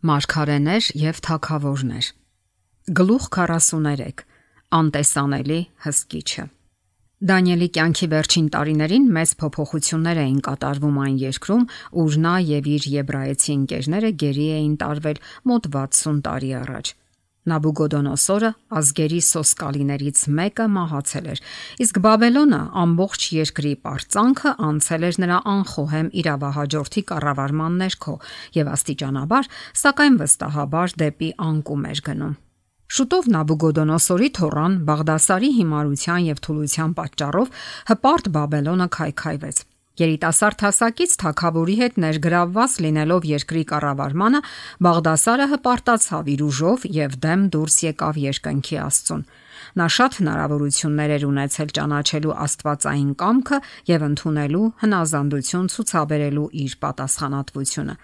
Մարգարեներ եւ թագավորներ։ Գլուխ 43. Անտեսանելի հսկիչը։ Դանիելի կյանքի վերջին տարիներին մեծ փոփոխություններ էին կատարվում այն երկրում, ուր նա եւ իր եբրայեցի ընկերները գերի էին տարվել մոտ 60 տարի առաջ։ Նաբուգոդոնոսորը ազգերի սոսկալիներից մեկը մահացել էր, իսկ Բաբելոնը ամբողջ երկրի պարծանքը անցել էր նրա անխոհեմ իրավահաջորդի կառավարման ներքո եւ աստիճանաբար, սակայն վստահաբար դեպի անկում էր գնում։ Շուտով Նաբուգոդոնոսորի թոռան Բաղդասարի հիմարության եւ թուլության պատճառով հպարտ Բաբելոնը քայքայվեց։ Երիտասարդ հասակից թագավորի հետ ներգրավված լինելով երկրի կառավարմանը, Բաղդասարը հպարտացավ իր ուժով եւ դեմ դուրս եկավ երկնքի Աստծուն։ Նա շատ հնարավորություններ էր ունեցել ճանաչելու աստվածային կամքը եւ ընդունելու հնազանդություն ցուցաբերելու իր պատասխանատվությունը։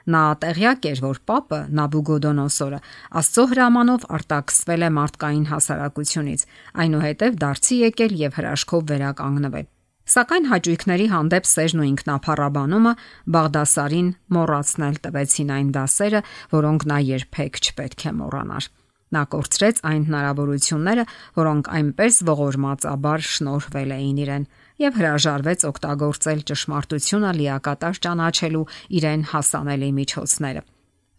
Նա տեղյակ էր, որ Պապը Նաբուգոդոնոսորը Աստծո հրամանով արտաքսվել է մարդկային հասարակությունից, այնուհետև դարձի եկել եւ հրաշքով վերականգնվել։ Սակայն հաճույքների հանդեպ սերն ու ինքնափառաբանումը Բաղդասարին մոռացնել տվեցին այն դասերը, որոնք նա երբեք չպետք է մոռանար։ Նա կորցրեց այն հնարավորությունները, որոնք այնպես ողորմածաբար շնորհվել էին իրեն, եւ հրաժարվեց օգտագործել ճշմարտությունը լիակատար ճանաչելու իրեն հասանելի միջոցները։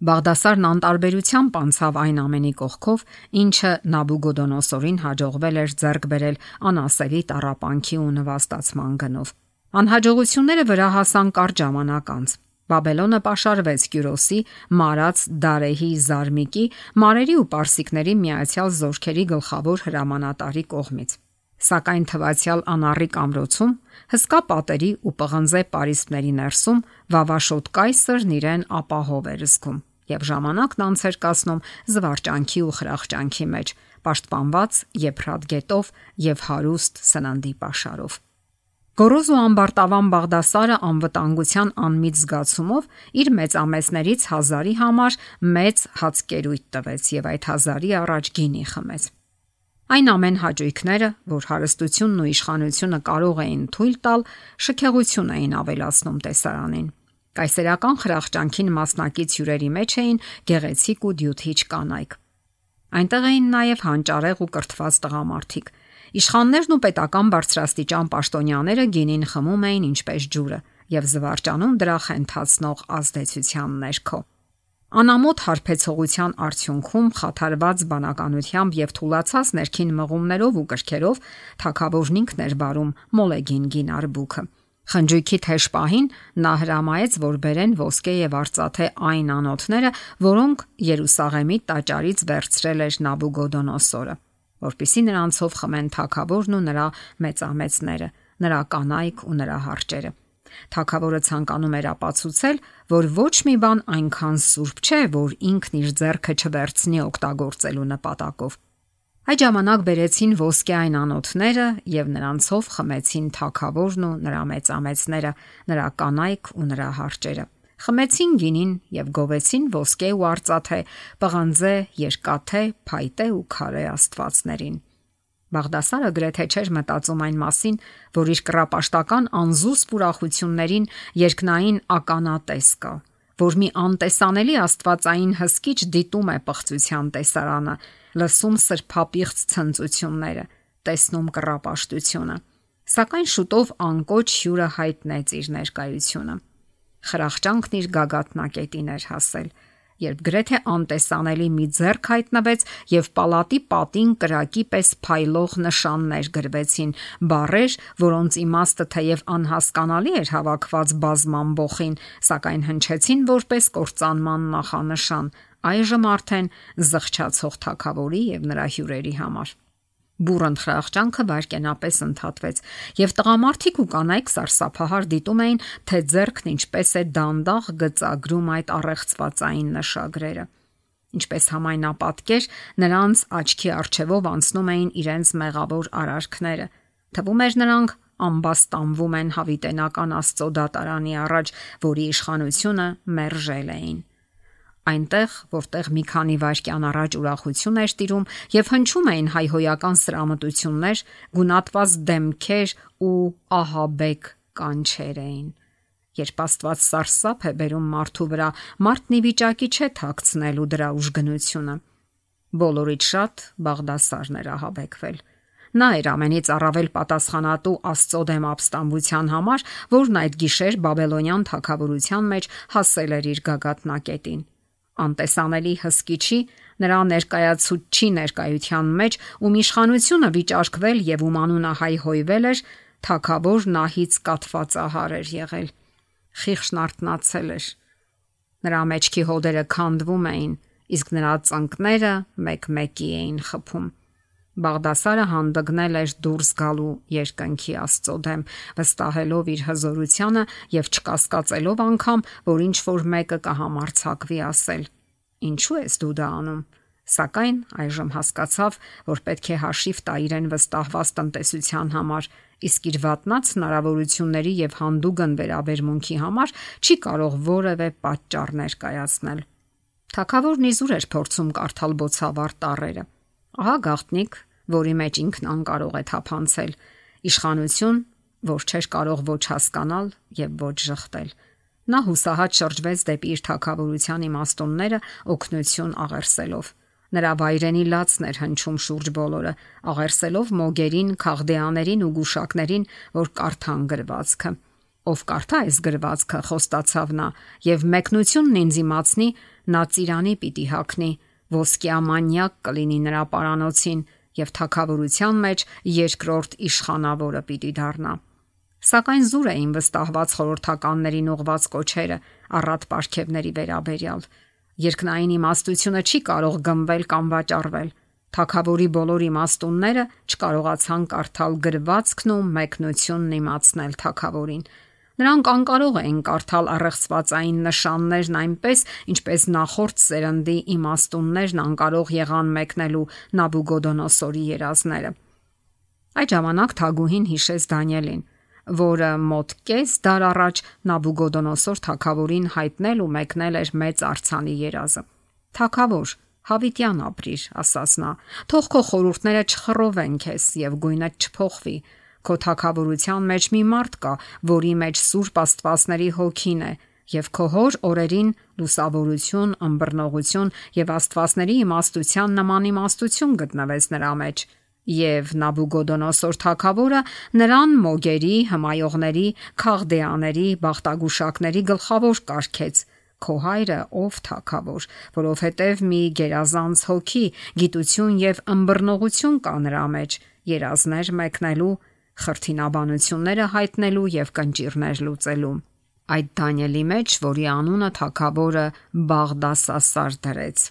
Բաղդասարն անտարբերությամբ անցավ այն ամենի կողքով, ինչը Նաբուգոդոնոսորին հաջողվել էր ձեռք բերել անասելի տառապանքի ու նվաստացման գնով։ Անհաջողությունները վրա հասան կարճ ժամանակ անց։ Բաբելոնը պաշարվեց Կյուրոսի, Մարաց Դարեհի Զարմիկի, Մարերի ու Պարսիկների միացյալ զորքերի գլխավոր հրամանատարի կողմից։ Սակայն թվացյալ անառիկ ամրոցում, հսկա պատերի ու պղնձե պարիսպների ներսում վավաշոտ կայսրն իրեն ապահով էր զգում եւ ժամանակն անց էր կացնում զվարճանքի ու խրախճանքի մեջ, պաշտպանված Եփրատ գետով եւ հարուստ սննդի պաշարով։ Գոռոզ ու ամբարտավան Բաղդասարը անվտանգության անմիջ զգացումով իր մեծամեծներից 1000-ի համար մեծ հացկերույթ տվեց եւ այդ 1000-ի առաջ գինի խմեց։ Այն ամեն հաճույքները, որ հարստությունն ու իշխանությունը կարող էին թույլ տալ, շքեղություն էին ավելացնում տեսարանին։ Կայսերական խրախճանքին մասնակից հյուրերի մեջ էին գեղեցիկ ու դյութիչ կանայք։ Այնտեղ էին նաև հանճարեղ ու կրթված տղամարդիկ։ Իշխաններն ու պետական բարձրաստիճան պաշտոնյաները գինին խմում էին ինչպես ջուրը եւ զվարճանում դրա խենթացնող ազդեցության ներքո։ Անամոթ հարբեցողության արդյունքում խաթարված բանականությամբ եւ թուլացած ներքին մղումներով ու կրքերով թագավորն ինքն էր բարում մոլեգին գին արբուքը։ Խնջույքի թեժ պահին նա հրամայեց, որ բերեն ոսկե եւ արծաթե այն անոթները, որոնք Երուսաղեմի տաճարից վերցրել էր Նաբուգոդոնոսորը, որպեսզի նրանցով խմեն թագավորն ու նրա մեծամեծները, նրա կանայք ու նրա հարճերը։ Թագավորը ցանկանում էր ապացուցել, որ ոչ մի բան այնքան սուրբ չէ, որ ինքն իր ձեռքը չվերցնի օգտագործելու նպատակով։ Այդ ժամանակ բերեցին ոսկե այն անոթները եւ նրանցով խմեցին թագավորն ու նրա մեծամեծները, նրա կանայք ու նրա հարճերը։ Խմեցին գինին եւ գովեցին ոսկե ու արծաթե, պղնձե, երկաթե, փայտե ու քարե աստվածներին։ Բաղդասարը գրեթե չէր մտածում այն մասին, որ իր կռապաշտական անզուսպ ուրախություններին երկնային ականատես կա, որ մի անտեսանելի աստվածային հսկիչ դիտում է պղծության տեսարանը, լսում սրբապիղծ ցնծությունները, տեսնում կռապաշտությունը։ Սակայն շուտով անկոչ հյուրը հայտնեց իր ներկայությունը։ Խրախճանքն իր գագաթնակետին էր հասել, երբ գրեթե անտեսանելի մի ձեռք հայտնվեց եւ պալատի պատին կրակի պես փայլող նշաններ գրվեցին, բառեր, որոնց իմաստը թեև անհասկանալի էր հավաքված բազմամբոխին, սակայն հնչեցին որպես կործանման նախանշան, այժմ արդեն զղջացող թագավորի եւ նրա հյուրերի համար։ Բուրըն խրախճանքը վայրկենապես ընդհատվեց, եւ տղամարդիկ ու կանայք սարսափահար դիտում էին, թե ձեռքն ինչպես է դանդաղ գծագրում այդ առեղծվածային նշագրերը։ Ինչպես համայնապատկեր, նրանց աչքի առջևով անցնում էին իրենց մեղավոր արարքները։ Թվում էր նրանք ամբաստանվում են հավիտենական Աստծո դատարանի առաջ, որի իշխանությունը մերժել էին։ Այնտեղ, որտեղ մի քանի վայրկյան առաջ ուրախություն էր տիրում եւ հնչում էին հայհոյական սրամտություններ, գունատված դեմքեր ու ահաբեկ կանչեր էին։ Երբ Աստված սարսափ է բերում մարդու վրա, մարդն ի վիճակի չէ թաքցնելու դրա ուժգնությունը։ Բոլորից շատ Բաղդասարն էր ահաբեկվել։ Նա էր ամենից առավել պատասխանատու Աստծո դեմ ապստամբության համար, որն այդ գիշեր Բաբելոնյան թագավորության մեջ հասել էր իր գագաթնակետին։ Անտեսանելի հսկիչի, նրա ներկայացուցչի ներկայության մեջ, ում իշխանությունը վիճարկվել եւ ում անունը հայհոյվել էր, թագավոր նահից կաթված ահար էր եղել։ Խիղճն արթնացել էր։ Նրա մեջքի հոդերը քանդվում էին, իսկ նրա ծնկները մեկ-մեկի էին խփում։ Բաղդասարը հանդգնել էր դուրս գալու երկնքի Աստծո դեմ, վստահելով իր հզորությանը եւ չկասկածելով անգամ, որ ինչ որ մեկը կհամարցակվի ասել. «Ինչու ես դու դա անում»։ Սակայն այժմ հասկացավ, որ պետք է հաշիվ տա իրեն վստահված տնտեսության համար, իսկ իր վատնած հնարավորությունների եւ հանդուգն վերաբերմունքի համար չի կարող որևէ պատճառ ներկայացնել։ Թագավորն իզուր էր փորձում կարդալ բոցավառ տառերը։ Ահա գաղտնիք, որի մեջ ինքն անկարող է թափանցել, իշխանություն, որ չէր կարող ոչ հասկանալ եւ ոչ ժխտել։ Նա հուսահատ շրջվեց դեպի իր թագավորության իմաստունները օգնություն աղերսելով։ Նրա վայրենի լացն էր հնչում շուրջ բոլորը, աղերսելով մոգերին, քաղդեաներին ու գուշակներին, որ կարդան գրվածքը։ Ով կարդա այս գրվածքը, խոստացավ նա, եւ մեկնությունն ինձ իմացնի, նա ծիրանի պիտի հագնի, ոսկյա մանյակ կլինի նրա պարանոցին եւ թագավորության մեջ երկրորդ իշխանավորը պիտի դառնա։ Սակայն զուր էին վստահված խորհրդականներին ուղված կոչերը առատ պարգևների վերաբերյալ։ Երկնային իմաստությունը չի կարող գնվել կամ վաճառվել։ Թագավորի բոլոր իմաստունները չկարողացան կարդալ գրվածքն ու մեկնությունն իմացնել թագավորին։ Նրանք անկարող էին կարդալ առեղծվածային նշաններն այնպես, ինչպես նախորդ սերնդի իմաստուններն անկարող եղան մեկնելու Նաբուգոդոնոսորի երազները։ Այդ ժամանակ թագուհին հիշեց Դանիելին, որը մոտ կես դար առաջ Նաբուգոդոնոսոր թագավորին հայտնել ու մեկնել էր մեծ արձանի երազը։ Թագավոր, հավիտյան ապրիր, ասաց նա, թող քո խորհուրդները չխռովեն քեզ եւ գույնդ չփոխվի։ Քո թագավորության մեջ մի մարդ կա, որի մեջ Սուրբ Աստվածների հոգին է, եւ քո հոր օրերին լուսավորություն, ըմբռնողություն եւ Աստվածների իմաստության նման իմաստություն գտնվեց նրա մեջ։ Եվ Նաբուգոդոնոսոր թագավորը նրան մոգերի, հմայողների, քաղդեաների, բախտագուշակների գլխավոր կարգեց։ Քո հայրը ով թագավոր, որովհետև մի գերազանց հոգի, գիտություն եւ ըմբռնողություն կա նրա մեջ, երազներ մեկնելու, խրթինաբանությունները հայտնելու եւ կնճիռներ լուծելու։ Այդ Դանիելի մեջ, որի անունը թագավորը Բաղդասասար դրեց։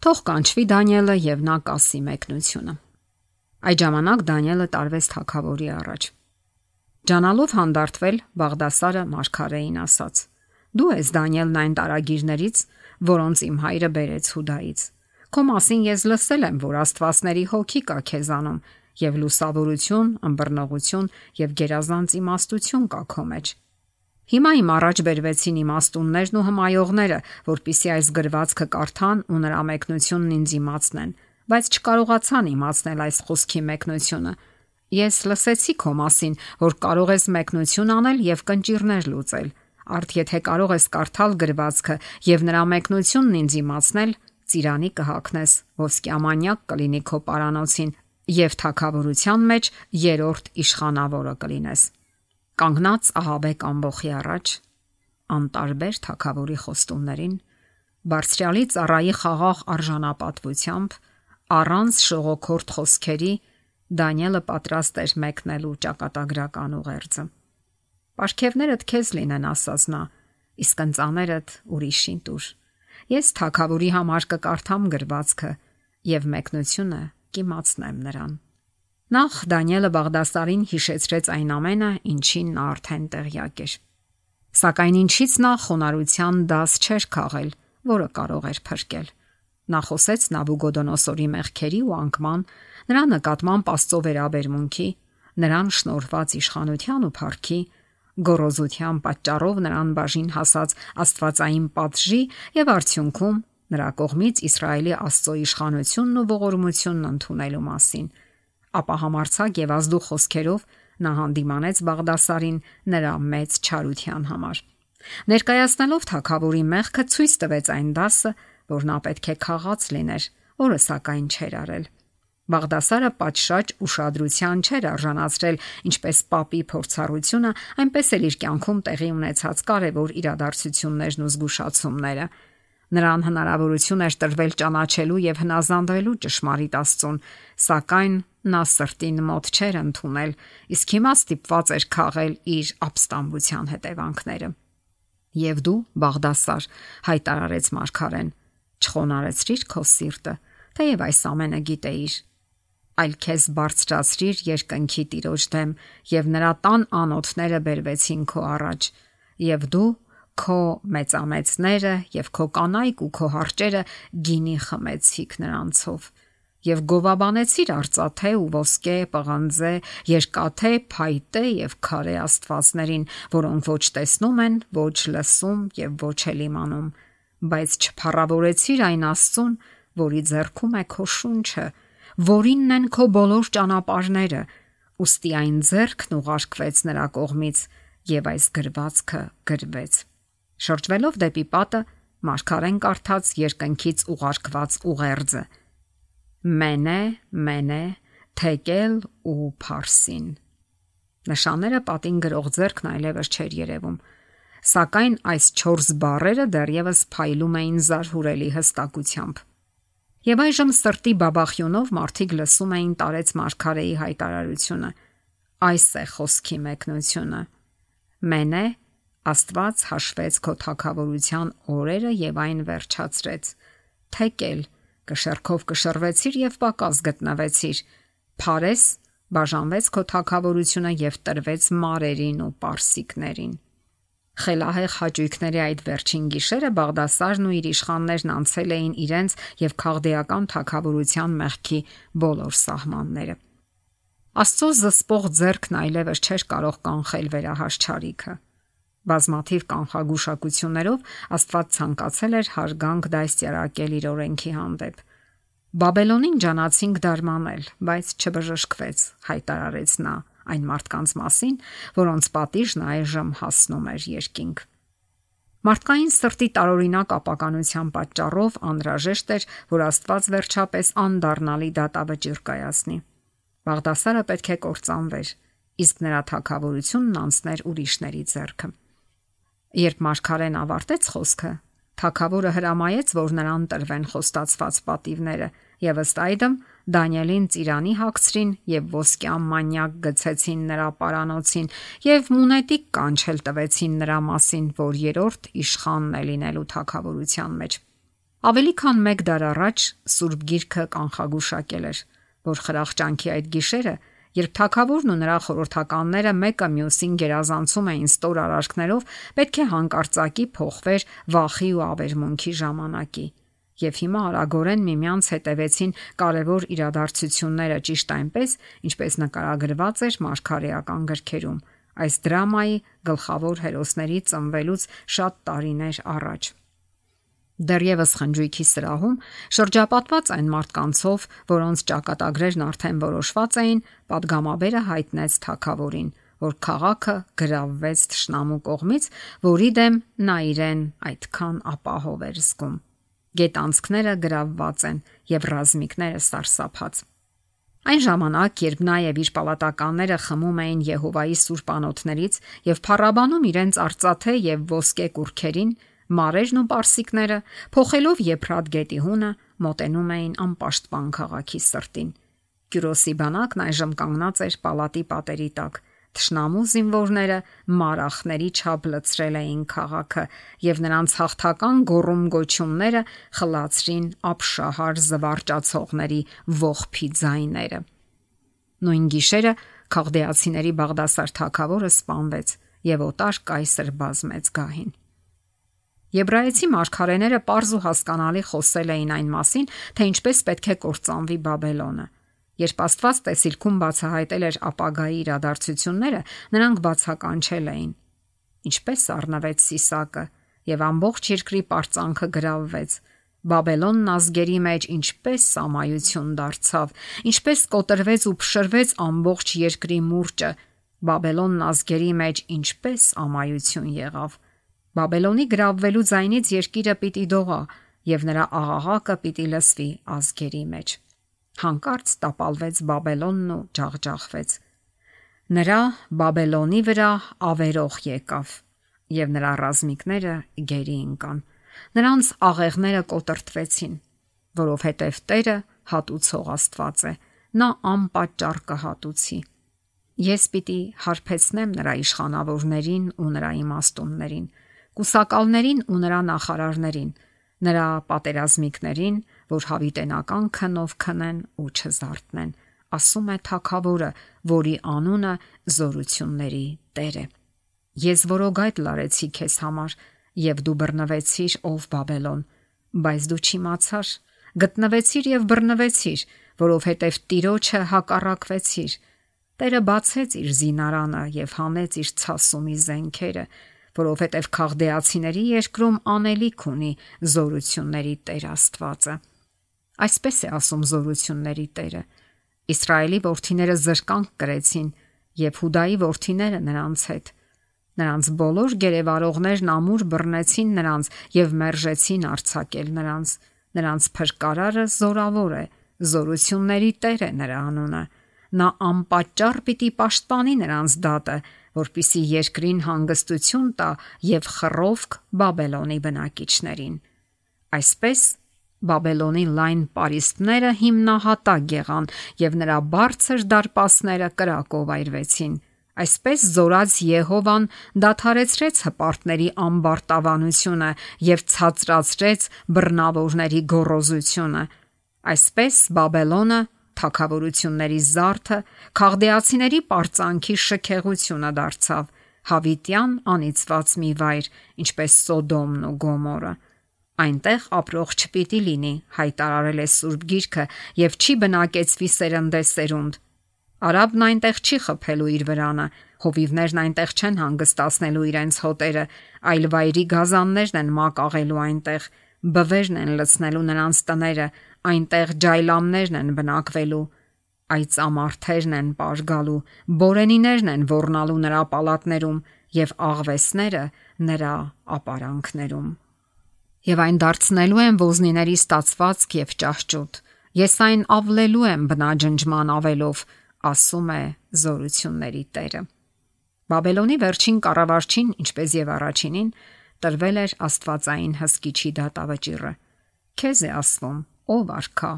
Թող կանչվի Դանիելը եւ նա կասի մեկնությունը։ Այդ ժամանակ Դանիելը տարվեց թագավորի առաջ։ Ջանալով հանդարտվել, Բաղդասարը մարգարեին ասաց. Դու ես Դանիելն այն տարագիրներից, որոնց իմ հայրը բերեց Հուդայից։ Քո մասին ես լսել եմ, որ Աստվածների հոգի կա քեզանում եւ լուսավորություն, ըմբռնողություն եւ գերազանց իմաստություն կա քո մեջ։ Հիմա իմ առաջ բերվեցին իմաստուններն ու հմայողները, որpիսի այս գրվածքը կարդան ու նրա մեկնությունն ինձ իմացնեն, բայց չկարողացան իմացնել այս խոսքի մեկնությունը։ Ես լսեցի քո մասին, որ կարող ես մեկնություն անել եւ կնճիռներ լուծել։ Արդ եթե կարող ես կարդալ գրվածքը եւ նրա մեկնությունն ինձ իմացնել, ծիրանի կհագնես, ոսկյամանյակ կլինի քո պարանոցին եւ թագավորության մեջ երրորդ իշխանավորը կլինես։ Կանգնած ահաբեկ ամբոխի առաջ, անտարբեր թագավորի խոստումներին, բարձրալի ծառայի խաղաղ արժանապատվությամբ, առանց շողոքորթ խոսքերի, Դանիելը պատրաստ էր մեկնելու ճակատագրական ուղերձը։ Պարգևներդ քեզ լինեն, ասաց նա, իսկ ընծաներդ ուրիշին տուր։ Ես թագավորի համար կկարդամ գրվածքը եւ մեկնությունը կիմացնեմ նրան։ Նախ Դանիելը Բաղդասարին հիշեցրեց այն ամենը, ինչին նա արդեն տեղյակ էր։ Սակայն ինչից նա խոնարհության դաս չէր քաղել, որը կարող էր փրկել։ Նա խոսեց Նաբուգոդոնոսորի մեղքերի ու անկման, նրա նկատմամբ Աստծո վերաբերմունքի, նրան շնորհված իշխանության ու փառքի, գոռոզության պատճառով նրան բաժին հասած աստվածային պատժի եւ արդյունքում նրա կողմից Իսրայելի Աստծո իշխանությունն ու ողորմությունն ընդունելու մասին։ Ապա համարցակ եւ ազդու խոսքերով նա հանդիմանեց Բաղդասարին նրա մեծ չարության համար։ Ներկայացնելով թագավորի մեղքը ցույց տվեց այն դասը, որ նա պետք է քաղաց լիներ, որը սակայն չէր արել։ Բաղդասարը պատշաճ ուշադրության չէր արժանացրել ինչպես պապի փորձառությունը, այնպես էլ իր կյանքում տեղի ունեցած կարևոր իրադարձություններն ու զգուշացումները։ Նրան հնարավորություն էր տրվել ճանաչելու եւ հնազանդվելու ճշմարիտ Աստծուն, սակայն նա սրտին մոտ չէր ընդունել, իսկ հիմա ստիպված էր քաղել իր ապստամբության հետևանքները։ Եվ դու, Բաղդասար, հայտարարեց մարգարեն, չխոնարեցրիր քո սիրտը, թեև այս ամենը գիտեիր, այլ քեզ բարձրացրիր երկնքի Տիրոջ դեմ, եւ նրա տան անոթները բերվեցին քո առաջ, եւ դու քո մեծամեծները եւ քո կանայք ու քո հարճերը գինի խմեցիք նրանցով, եւ գովաբանեցիր արծաթե ու ոսկե, պղնձե, երկաթե, փայտե եւ քարե աստվածներին, որոնք ոչ տեսնում են, ոչ լսում եւ ոչ էլ իմանում, բայց չփառավորեցիր այն Աստծուն, որի ձեռքում է քո շունչը, որինն են քո բոլոր ճանապարհները, ուստի այն ձեռքն ուղարկվեց նրա կողմից եւ այս գրվածքը գրվեց։ Շրջվելով դեպի պատը, մարգարեն կարդաց երկնքից ուղարկված ուղերձը. Մենե, թեկել ու փարսին։ Նշանները պատին գրող ձեռքն այլևս չէր երևում, սակայն այս 4 բառերը դեռևս փայլում էին զարհուրելի հստակությամբ։ Եվ այժմ սրտի բաբախյունով մարդիկ լսում էին տարեց մարգարեի հայտարարությունը. այս է խոսքի մեկնությունը։ Մենե, Աստված հաշվեց քո թագավորության օրերը եւ այն վերջացրեց։ Թեկել, կշեռքով կշռվեցիր եւ պակաս գտնվեցիր։ Փարես, բաժանվեց քո թագավորությունը եւ տրվեց մարերին ու պարսիկներին։ Խելահեղ հաճույքների այդ վերջին գիշերը Բաղդասարն ու իր իշխաններն անցել էին իրենց եւ քաղդեական թագավորության մեղքի բոլոր սահմանները։ Աստծո զսպող ձեռքն այլևս չէր կարող կանխել վերահաշճարիքը։ Բազմաթիվ կանխագուշակություններով Աստված ցանկացել էր հարգանք դաստիարակել իր օրենքի հանդեպ։ Բաբելոնին ջանացինք դարմանել, բայց չբժշկվեց, հայտարարեց նա այն մարդկանց մասին, որոնց պատիժն այժմ հասնում էր երկինք։ Մարդկային սրտի տարօրինակ ապականության պատճառով անհրաժեշտ էր, որ Աստված վերջապես անդառնալի դատավճիռ կայացնի։ Բաղդասարը պետք է կործանվեր, իսկ նրա թագավորությունն անցներ ուրիշների ձեռքը։ Երբ մարգարեն ավարտեց խոսքը, թագավորը հրամայեց, որ նրան տրվեն խոստացված պատիվները, եւ ըստ այդմ Դանիելին ծիրանի հագցրին եւ ոսկյա մանյակ գցեցին նրա պարանոցին եւ մունետիկ կանչել տվեցին նրա մասին, որ երրորդ իշխանն է լինելու թագավորության մեջ։ Ավելի քան 1 դար առաջ Սուրբ Գիրքը կանխագուշակել էր, որ խրախճանքի այդ գիշերը, երբ թագավորն ու նրա խորհրդականները մեկը մյուսին գերազանցում էին ստոր արարքներով, պետք է հանկարծակի փոխվեր վախի ու ավերմունքի ժամանակի։ Եվ հիմա արագորեն միմյանց հետևեցին կարևոր իրադարձությունները ճիշտ այնպես, ինչպես նկարագրված էր մարգարեական գրքերում, այս դրամայի գլխավոր հերոսների ծնվելուց շատ տարիներ առաջ։ Դեռևս խնջույքի սրահում, շրջապատված այն մարդկանցով, որոնց ճակատագրերն արդեն որոշված էին, պատգամաբերը հայտնեց թագավորին, որ քաղաքը գրավվեց թշնամու կողմից, որի դեմ նա իրեն այդքան ապահով էր զգում։ Գետանցքները գրավված են եւ ռազմիկները սարսափած։ Այն ժամանակ, երբ նա եւ իր պալատականները խմում էին Եհովայի սուրբ անոթներից եւ փառաբանում իրենց արծաթե եւ ոսկե կուռքերին, մարերն ու պարսիկները, փոխելով Եփրատ գետի հունը, մոտենում էին անպաշտպան քաղաքի սրտին։ Կյուրոսի բանակն այժմ կանգնած էր պալատի պատերի տակ։ Թշնամու զինվորները մարախների չափ լցրել էին քաղաքը եւ նրանց հաղթական գոռում-գոչումները խլացրին ապշահար զվարճացողների ողբի ձայները։ Նույն գիշերը քաղդեացիների Բաղդասար թագավորը սպանվեց եւ օտար կայսր բազմեց գահին։ Եբրայեցի մարգարեները պարզ ու հասկանալի խոսել էին այն մասին, թե ինչպես պետք է կործանվի Բաբելոնը։ Երբ Աստված տեսիլքում բացահայտել էր ապագայի իրադարձությունները, նրանք բացականչել էին։ Ինչպես առնվեց Սիսակը եւ ամբողջ երկրի պարծանքը գրավվեց։ Բաբելոնն ազգերի մեջ ինչպես սամայություն դարձավ, ինչպես կոտրվեց ու փշրվեց ամբողջ երկրի մուրճը, Բաբելոնն ազգերի մեջ ինչպես ամայություն եղավ։ Բաբելոնի գրավվելու ձայնից երկիրը պիտի դողա եւ նրա աղաղակը պիտի լսվի ազգերի մեջ։ Հանկարծ տապալվեց Բաբելոնն ու ջախջախվեց։ Նրա Բաբելոնի վրա ավերող եկավ եւ նրա ռազմիկները գերի ընկան։ Նրանց աղեղները կոտրտվեցին, որովհետև Տերը հատուցող Աստված է, նա անպատճառ կհատուցի։ Ես պիտի հարբեցնեմ նրա իշխանավորներին ու նրա իմաստուններին, կուսակալներին ու նրա նախարարներին, նրա պատերազմիկներին, որ հավիտենական քնով քնեն ու չզարթնեն, ասում է Թագավորը, որի անունը զորությունների Տեր է։ Ես որոգայթ լարեցի քեզ համար, եւ դու բռնվեցիր, ով Բաբելոն, բայց դու չիմացար, գտնվեցիր եւ բռնվեցիր, որովհետեւ Տիրոջը հակառակվեցիր։ Տերը բացեց իր զինարանը եւ հանեց իր ցասումի զենքերը, որովհետեւ քաղդեացիների երկրում անելիք ունի զորությունների Տեր Աստվածը։ Այսպես է ասում զորությունների Տերը. Իսրայելի որդիները զրկանք կրեցին եւ Հուդայի որդիները նրանց հետ։ Նրանց բոլոր գերեվարողներն ամուր բռնեցին նրանց եւ մերժեցին արձակել նրանց։ Նրանց փրկարարը զորավոր է, զորությունների Տեր է նրա անունը։ Նա անպատճառ պիտի պաշտպանի նրանց դատը, որպիսի երկրին հանգստություն տա եւ խռովք Բաբելոնի բնակիչներին։ Այսպես Բաբելոնի լայն պարիսպները հիմնահատակ եղան եւ նրա բարձր դարպասները կրակով այրվեցին։ Այսպես զորած Եհովան դադարեցրեց հպարտների ամբարտավանությունը եւ ցածրացրեց բռնավորների գոռոզությունը։ Այսպես Բաբելոնը թագավորությունների զարդը, քաղդեացիների պարծանքի շքեղությունը դարձավ, հավիտյան անիծված մի վայր, ինչպես Սոդոմն ու Գոմորը։ Այնտեղ ապրող չպիտի լինի, հայտարարել է Սուրբ Գիրքը, եւ չի բնակեցվի սերնդեսերունդ։ Արաբն այնտեղ չի խփելու իր վրանը, հովիվներն այնտեղ չեն հանգստացնելու իրենց հոտերը, այլ վայրի գազաններն են մակաղելու այնտեղ, բվերն են լցնելու նրանց տները, այնտեղ ջայլամներն են բնակվելու, այծամարթերն են պարգալու, բորենիներն են ոռնալու նրա պալատներում եւ աղվեսները նրա ապարանքներում։ Եվ այն դարձնելու եմ ոզնիների ստացվածք եւ ճահճուտ։ Ես այն ավլելու եմ բնաջնջման ավելով, ասում է զորությունների Տերը։ Բաբելոնի վերջին կառավարչին, ինչպես եւ առաջինին, տրվել էր Աստվածային հսկիչի դատավճիռը։ Քեզ է ասվում, ով արքա,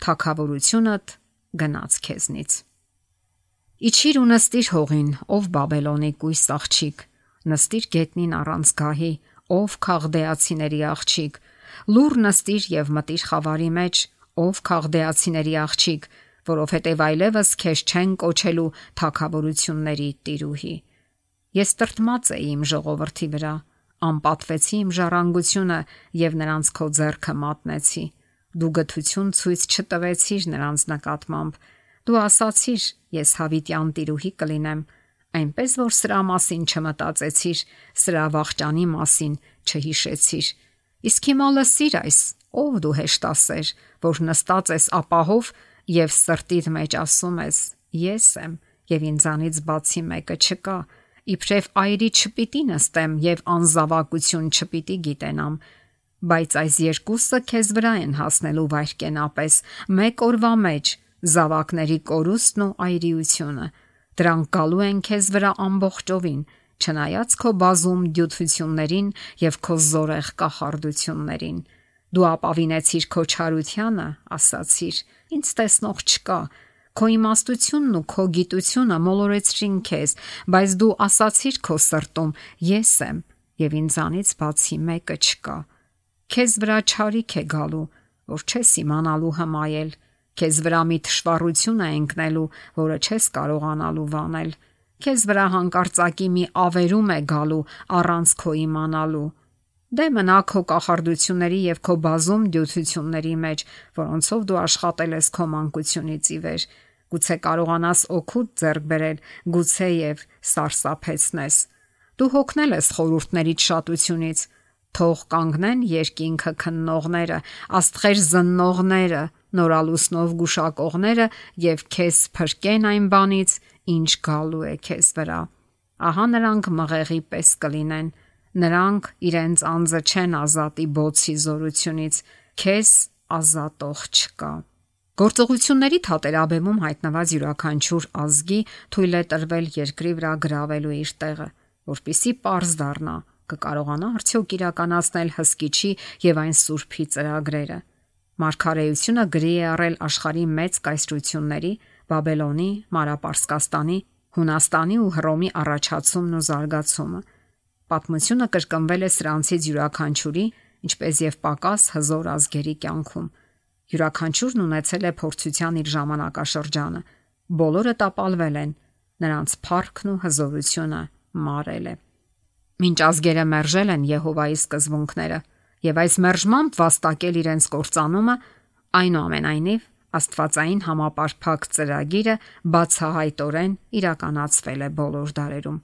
թագավորությունդ գնաց քեզնից։ Իջիր ու նստիր հողին, ով Բաբելոնի կույս աղջիկ, նստիր գետնին առանց գահի, ով քաղդեացիների աղջիկ, լուր նստիր եւ մտիր խավարի մեջ, ով քաղդեացիների աղջիկ, որովհետև այլևս քեզ չեն կոչելու թագավորությունների տիրուհի։ Ես տրտմած էի իմ ժողովրդի վրա, անպատվեցի իմ ժառանգությունը եւ նրանց քո ձեռքը մատնեցի։ Դու գթություն ցույց չտվեցիր նրանց նկատմամբ։ Դու ասացիր, ես հավիտյան տիրուհի կլինեմ, այնպես որ սրա մասին չմտածեցիր, սրա վախճանի մասին չհիշեցիր։ Իսկ հիմա լսիր այս, ով դու հեշտասեր, որ նստած ես ապահով եւ սրտիդ մեջ ասում ես. ես եմ եւ ինձանից բացի մեկը չկա, իբրև այրի չպիտի նստեմ եւ անզավակություն չպիտի գիտենամ, բայց այս երկուսը քեզ վրա են հասնելու վայրկենապես, մեկ օրվա մեջ, զավակների կորուստն ու այրիությունը, դրանք գալու են քեզ վրա ամբողջովին, չնայած քո բազում դյութություններին եւ քո զորեղ կախարդություններին։ Դու ապավինեցիր քո չարությանը, ասացիր. ինձ տեսնող չկա, քո իմաստությունն ու քո գիտությունը մոլորեցրին քեզ, բայց դու ասացիր քո սրտում. ես եմ եւ ինձանից բացի մեկը չկա։ Քեզ վրա չարիք է գալու, որ չես իմանալու հմայել, քեզ վրա մի թշվառություն է ընկնելու, որը չես կարողանալու վանել, քեզ վրա հանկարծակի մի ավերում է գալու առանց քո իմանալու։ Դե մնա քո կախարդությունների եւ քո բազում դյութությունների մեջ, որոնցով դու աշխատել ես քո մանկությունից ի վեր, գուցե կարողանաս օգուտ ձեռք բերել, գուցե եւ սարսափեցնես։ Դու հոգնել ես խորհուրդներից շատությունից, թող կանգնեն երկինքը քննողները, աստղեր զննողները, նորալուսնով գուշակողները եւ քեզ փրկեն այն բանից, ինչ գալու է քեզ վրա։ Ահա նրանք մղեղի պես կլինեն, նրանք իրենց անձը չեն ազատի բոցի զորությունից, քեզ ազատող չկա։ Գործողությունների թատերաբեմում հայտնված յուրաքանչյուր ազգի թույլ է տրվել երկրի վրա գրավելու իր տեղը, որպիսի պարզ դառնա, կկարողանա արդյոք իրականացնել հսկիչի եւ այն սուրբի ծրագրերը։ Մարգարեությունը գրի է առել աշխարհի մեծ կայսրությունների՝ Բաբելոնի, Մարապարսկաստանի, Հունաստանի ու Հռոմի առաջացումն ու զարգացումը։ Պատմությունը կրկնվել է սրանցից յուրաքանչյուրի, ինչպես եւ պակաս հզոր ազգերի կյանքում։ Յուրաքանչյուրն ունեցել է փորձության իր ժամանակաշրջանը։ Բոլորը տապալվել են, նրանց փառքն ու հզորությունը մարել է։ Մինչ ազգերը մերժել են Եհովայի սկզբունքները եւ այս մերժմամբ վաստակել իրենց կործանումը, այնուամենայնիվ Աստվածային համապարփակ ծրագիրը բացահայտորեն իրականացվել է բոլոր դարերում։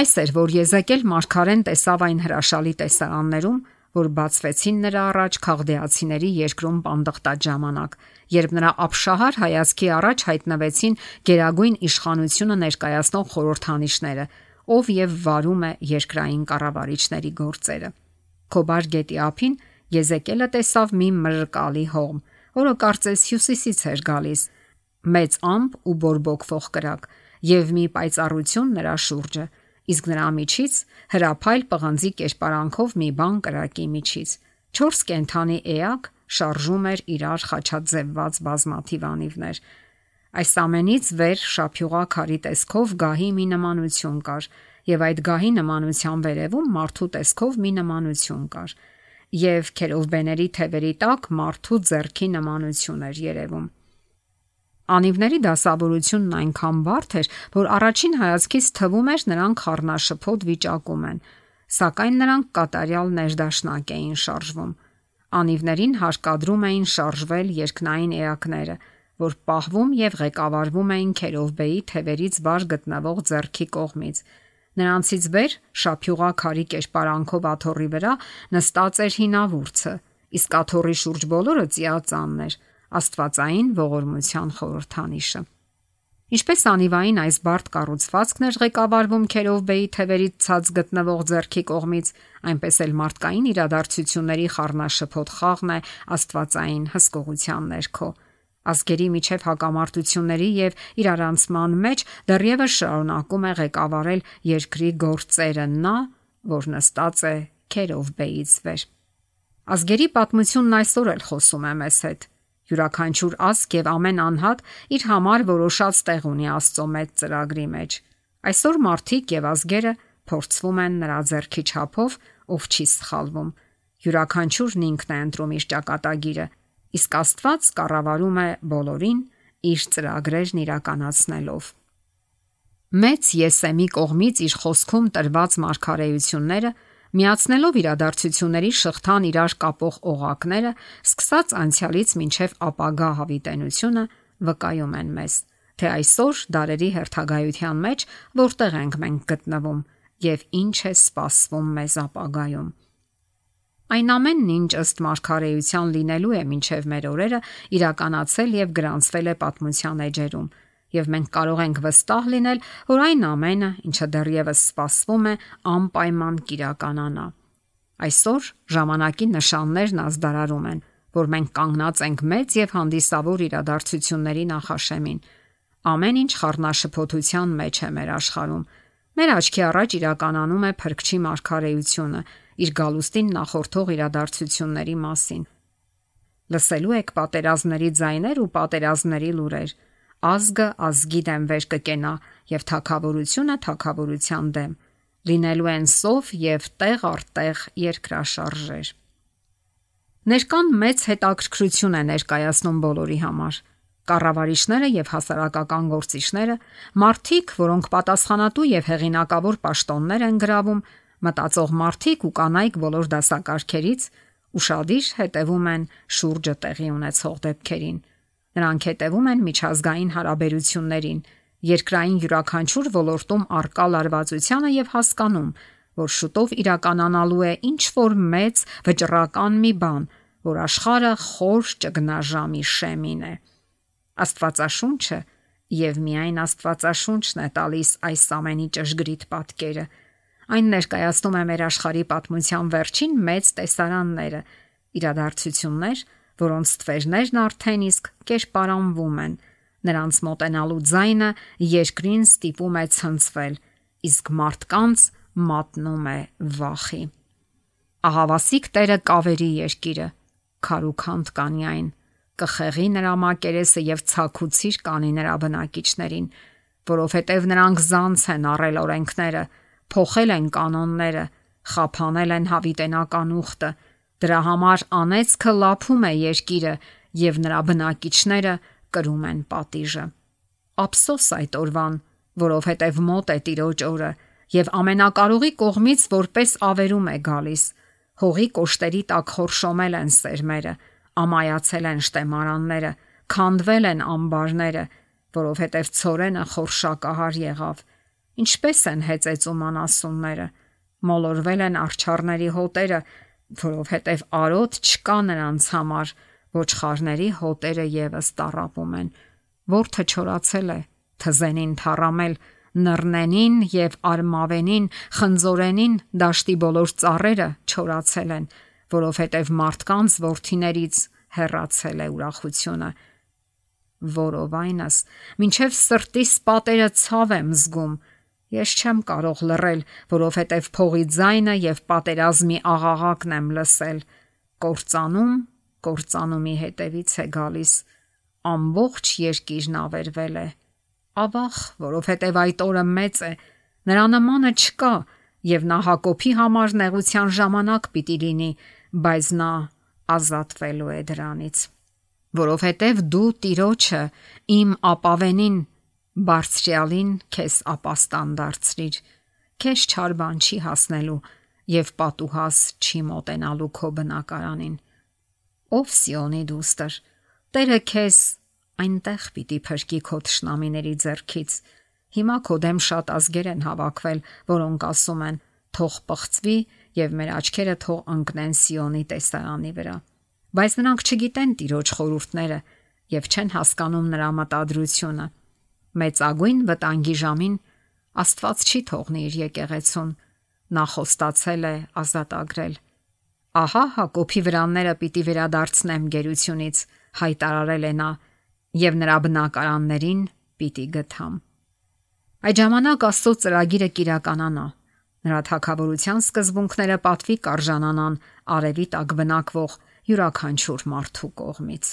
Այս էր, որ Եզեկիել մարգարեն տեսավ այն հրաշալի տեսարաններում, որ բացվեցին նրա առաջ քաղդեացիների երկրում պանդխտած ժամանակ, երբ նրա ապշահար հայացքի առաջ հայտնվեցին գերագույն իշխանությունը ներկայացնող խորհրդանիշները, ով եւ վարում է երկրային կառավարիչների գործերը։ Քոբար գետի ափին Եզեկիելը տեսավ մի մրրկալի հողմ, որը կարծես հյուսիսից էր գալիս, մեծ ամպ ու բորբոքվող կրակ, եւ մի պայծառություն նրա շուրջը, իսկ նրա միջից հրափայլ պղնձի կերպարանքով մի բան կրակի միջից։ 4 կենդանի էակ շարժում էր իրար խաչաձևված բազմաթիվ անիվներ։ Այս ամենից վեր շափյուղա քարի տեսքով գահի մի նմանություն կար, եւ այդ գահի նմանության վերևում մարդու տեսքով մի նմանություն կար, եւ քերովբեների թևերի տակ մարդու ձեռքի նմանություն էր երևում։ Անիվների դասավորությունն այնքան բարդ էր, որ առաջին հայացքից թվում էր նրանք խառնաշփոթ վիճակում են, սակայն նրանք կատարյալ ներդաշնակ էին շարժվում։ Անիվներին հարկադրում էին շարժվել երկնային էակները, որ պահվում եւ ղեկավարվում էին քերովբեի թևերից վար գտնվող ձեռքի կողմից։ Նրանցից վեր շափյուղա քարի կերպարանքով աթոռի վրա նստած էր հինավուրցը, իսկ աթոռի շուրջ բոլորը ծիածանն էր, Աստվածային ողորմության խորհրդանիշը։ Ինչպես անիվային այս բարդ կառուցվածքն էր ղեկավարվում քերովբեի թևերից ցած գտնվող ձեռքի կողմից, այնպես էլ մարդկային իրադարձությունների խառնաշփոթ խաղն է Աստվածային հսկողության ներքո։ Ազգերի միջև հակամարտությունների եւ իրարանցման մեջ դեռևս շարունակում է ղեկավարել երկրի գործերը նա, որ նստած է քերովբեից վեր։ Ազգերի պատմությունն այսօր էլ խոսում է մեզ հետ։ Յուրաքանչյուր ազգ եւ ամեն անհատ իր համար որոշած տեղ ունի Աստծո մեծ ծրագրի մեջ։ Այսօր մարդիկ եւ ազգերը փորձվում են նրա ձեռքի չափով, ով չի սխալվում։ Յուրաքանչյուրն ինքն է ընտրում իր ճակատագիրը, իսկ Աստված կառավարում է բոլորին իր ծրագրերն իրականացնելով։ Մեծ Եսեմի կողմից իր խոսքում տրված մարգարեությունները, միացնելով իրադարձությունների շղթան իրար կապող օղակները, սկսած անցյալից մինչև ապագա հավիտենությունը, վկայում են մեզ, թե այսօր դարերի հերթագայության մեջ որտեղ ենք մենք գտնվում եւ ինչ է սպասվում մեզ ապագայում։ Այն ամենն, ինչ ըստ մարգարեության լինելու է մինչև մեր օրերը, իրականացել եւ գրանցվել է պատմության էջերում, եւ մենք կարող ենք վստահ լինել, որ այն ամենը, ինչը դեռևս սպասվում է, անպայման կիրականանա։ Այսօր ժամանակի նշաններն ազդարարում են, որ մենք կանգնած ենք մեծ եւ հանդիսավոր իրադարձությունների նախաշեմին։ Ամեն ինչ խառնաշփոթության մեջ է մեր աշխարհում։ Մեր աչքի առաջ իրականանում է Փրկչի մարգարեությունը իր գալուստին նախորդող իրադարձությունների մասին։ Լսելու եք պատերազմների ձայներ ու պատերազմների լուրեր։ Ազգը ազգի դեմ վեր կկենա եւ թագավորությունը թագավորության դեմ։ Լինելու են սով եւ տեղ առ տեղ երկրաշարժեր։ Ներկան մեծ հետաքրքրություն է ներկայացնում բոլորի համար։ Կառավարիչները եւ հասարակական գործիչները, մարդիկ, որոնք պատասխանատու եւ հեղինակավոր պաշտոններ են գրավում, մտածող մարդիկ ու կանայք բոլոր դասակարգերից ուրախadir հետևում են շուրջը տեղի ունեցող դեպքերին։ Նրանք հետևում են միջազգային հարաբերություններին, երկրային յուրաքանչյուր ոլորտում առկա լարվածությանը եւ հասկանում, որ շուտով իրականանալու է ինչ որ մեծ վճռական մի բան, որ աշխարհը խոր ճգնաժամի շեմին է։ Աստվածաշունչը Եվ միայն Աստվածաշունչն է տալիս այս ամենի ճշգրիտ պատկերը։ Այն ներկայացնում է մեր աշխարհի պատմության վերջին մեծ տեսարանները, իրադարձություններ, որոնց ստվերներն արդեն իսկ կերպարանվում են։ Նրանց մոտենալու ձայնը երկրին ստիպում է ցնցվել, իսկ մարդկանց մատնում է վախի։ Ահավասիկ Տերը կավերի երկիրը, քարուքանդ կանի այն, կխեղի նրա մակերեսը եւ ցաքուցիր կանի նրա բնակիչներին, որովհետեւ նրանք զանց են առել օրենքները, փոխել են կանոնները, խափանել են հավիտենական ուխտը, դրա համար անեծքը լափում է երկիրը եւ նրա բնակիչները կրում են պատիժը։ Ափսոս այդ օրվան, որովհետեւ մոտ է Տիրոջ օրը եւ ամենակարողի կողմից որպես ավերում է գալիս։ Հողի կոշտերի տակ խորշոմել են սերմերը, ամայացել են շտեմարանները, քանդվել են ամբարները, որովհետև ցորենը խորշակահար եղավ։ Ինչպես են հեծեծում անասունները, մոլորվել են արջառների հոտերը, որովհետև արոտ չկա նրանց համար, ոչխարների հոտերը եւս տառապում են։ Որդը չորացել է, թզենին թառամել, նռնենին եւ արմավենին, խնձորենին դաշտի բոլոր ծառերը չորացել են, որովհետև մարդկանց որդիներից հեռացել է ուրախությունը։ Որովայնս, մինչև սրտիս պատերը ցավ եմ զգում, ես չեմ կարող լռել, որովհետև փողի ձայնը եւ պատերազմի աղաղակն եմ լսել, կործանումի հետևից է գալիս, ամբողջ երկիրն ավերվել է, ավաղ, որովհետև այդ օրը մեծ է, նրա նմանը չկա եւ նա Հակոբի համար նեղության ժամանակ պիտի լինի, բայց նա ազատվելու է դրանից, որովհետև դու Տիրոջը իմ ապավենին, բարձրյալին քեզ ապաստան դարձրիր, քեզ չար բան չի հասնելու եւ պատուհաս չի մոտենալու քո բնակարանին։ Ով Սիոնի դուստր, Տերը քեզ այնտեղ պիտի փրկի քո թշնամիների ձեռքից։ Հիմա քո դեմ շատ ազգեր են հավաքվել, որոնք ասում են. թող պղծվի եւ մեր աչքերը թող ընկնեն Սիոնի տեսարանի վրա։ Բայց նրանք չգիտեն Տիրոջ խորհուրդները եւ չեն հասկանում նրա մտադրությունը։ Մեծագույն վտանգի ժամին Աստված չի թողնի իր եկեղեցուն, նա խոստացել է ազատագրել։ Ահա Հակոբի վրանները պիտի վերադարձնեմ գերությունից, հայտարարել է նա, եւ նրա բնակարաններին պիտի գթամ։ Այդ ժամանակ Աստծո ծրագիրը կիրականանա։ Նրա թագավորության սկզբունքները պատվի կարժանանան արևի տակ բնակվող յուրաքանչյուր մարդու կողմից։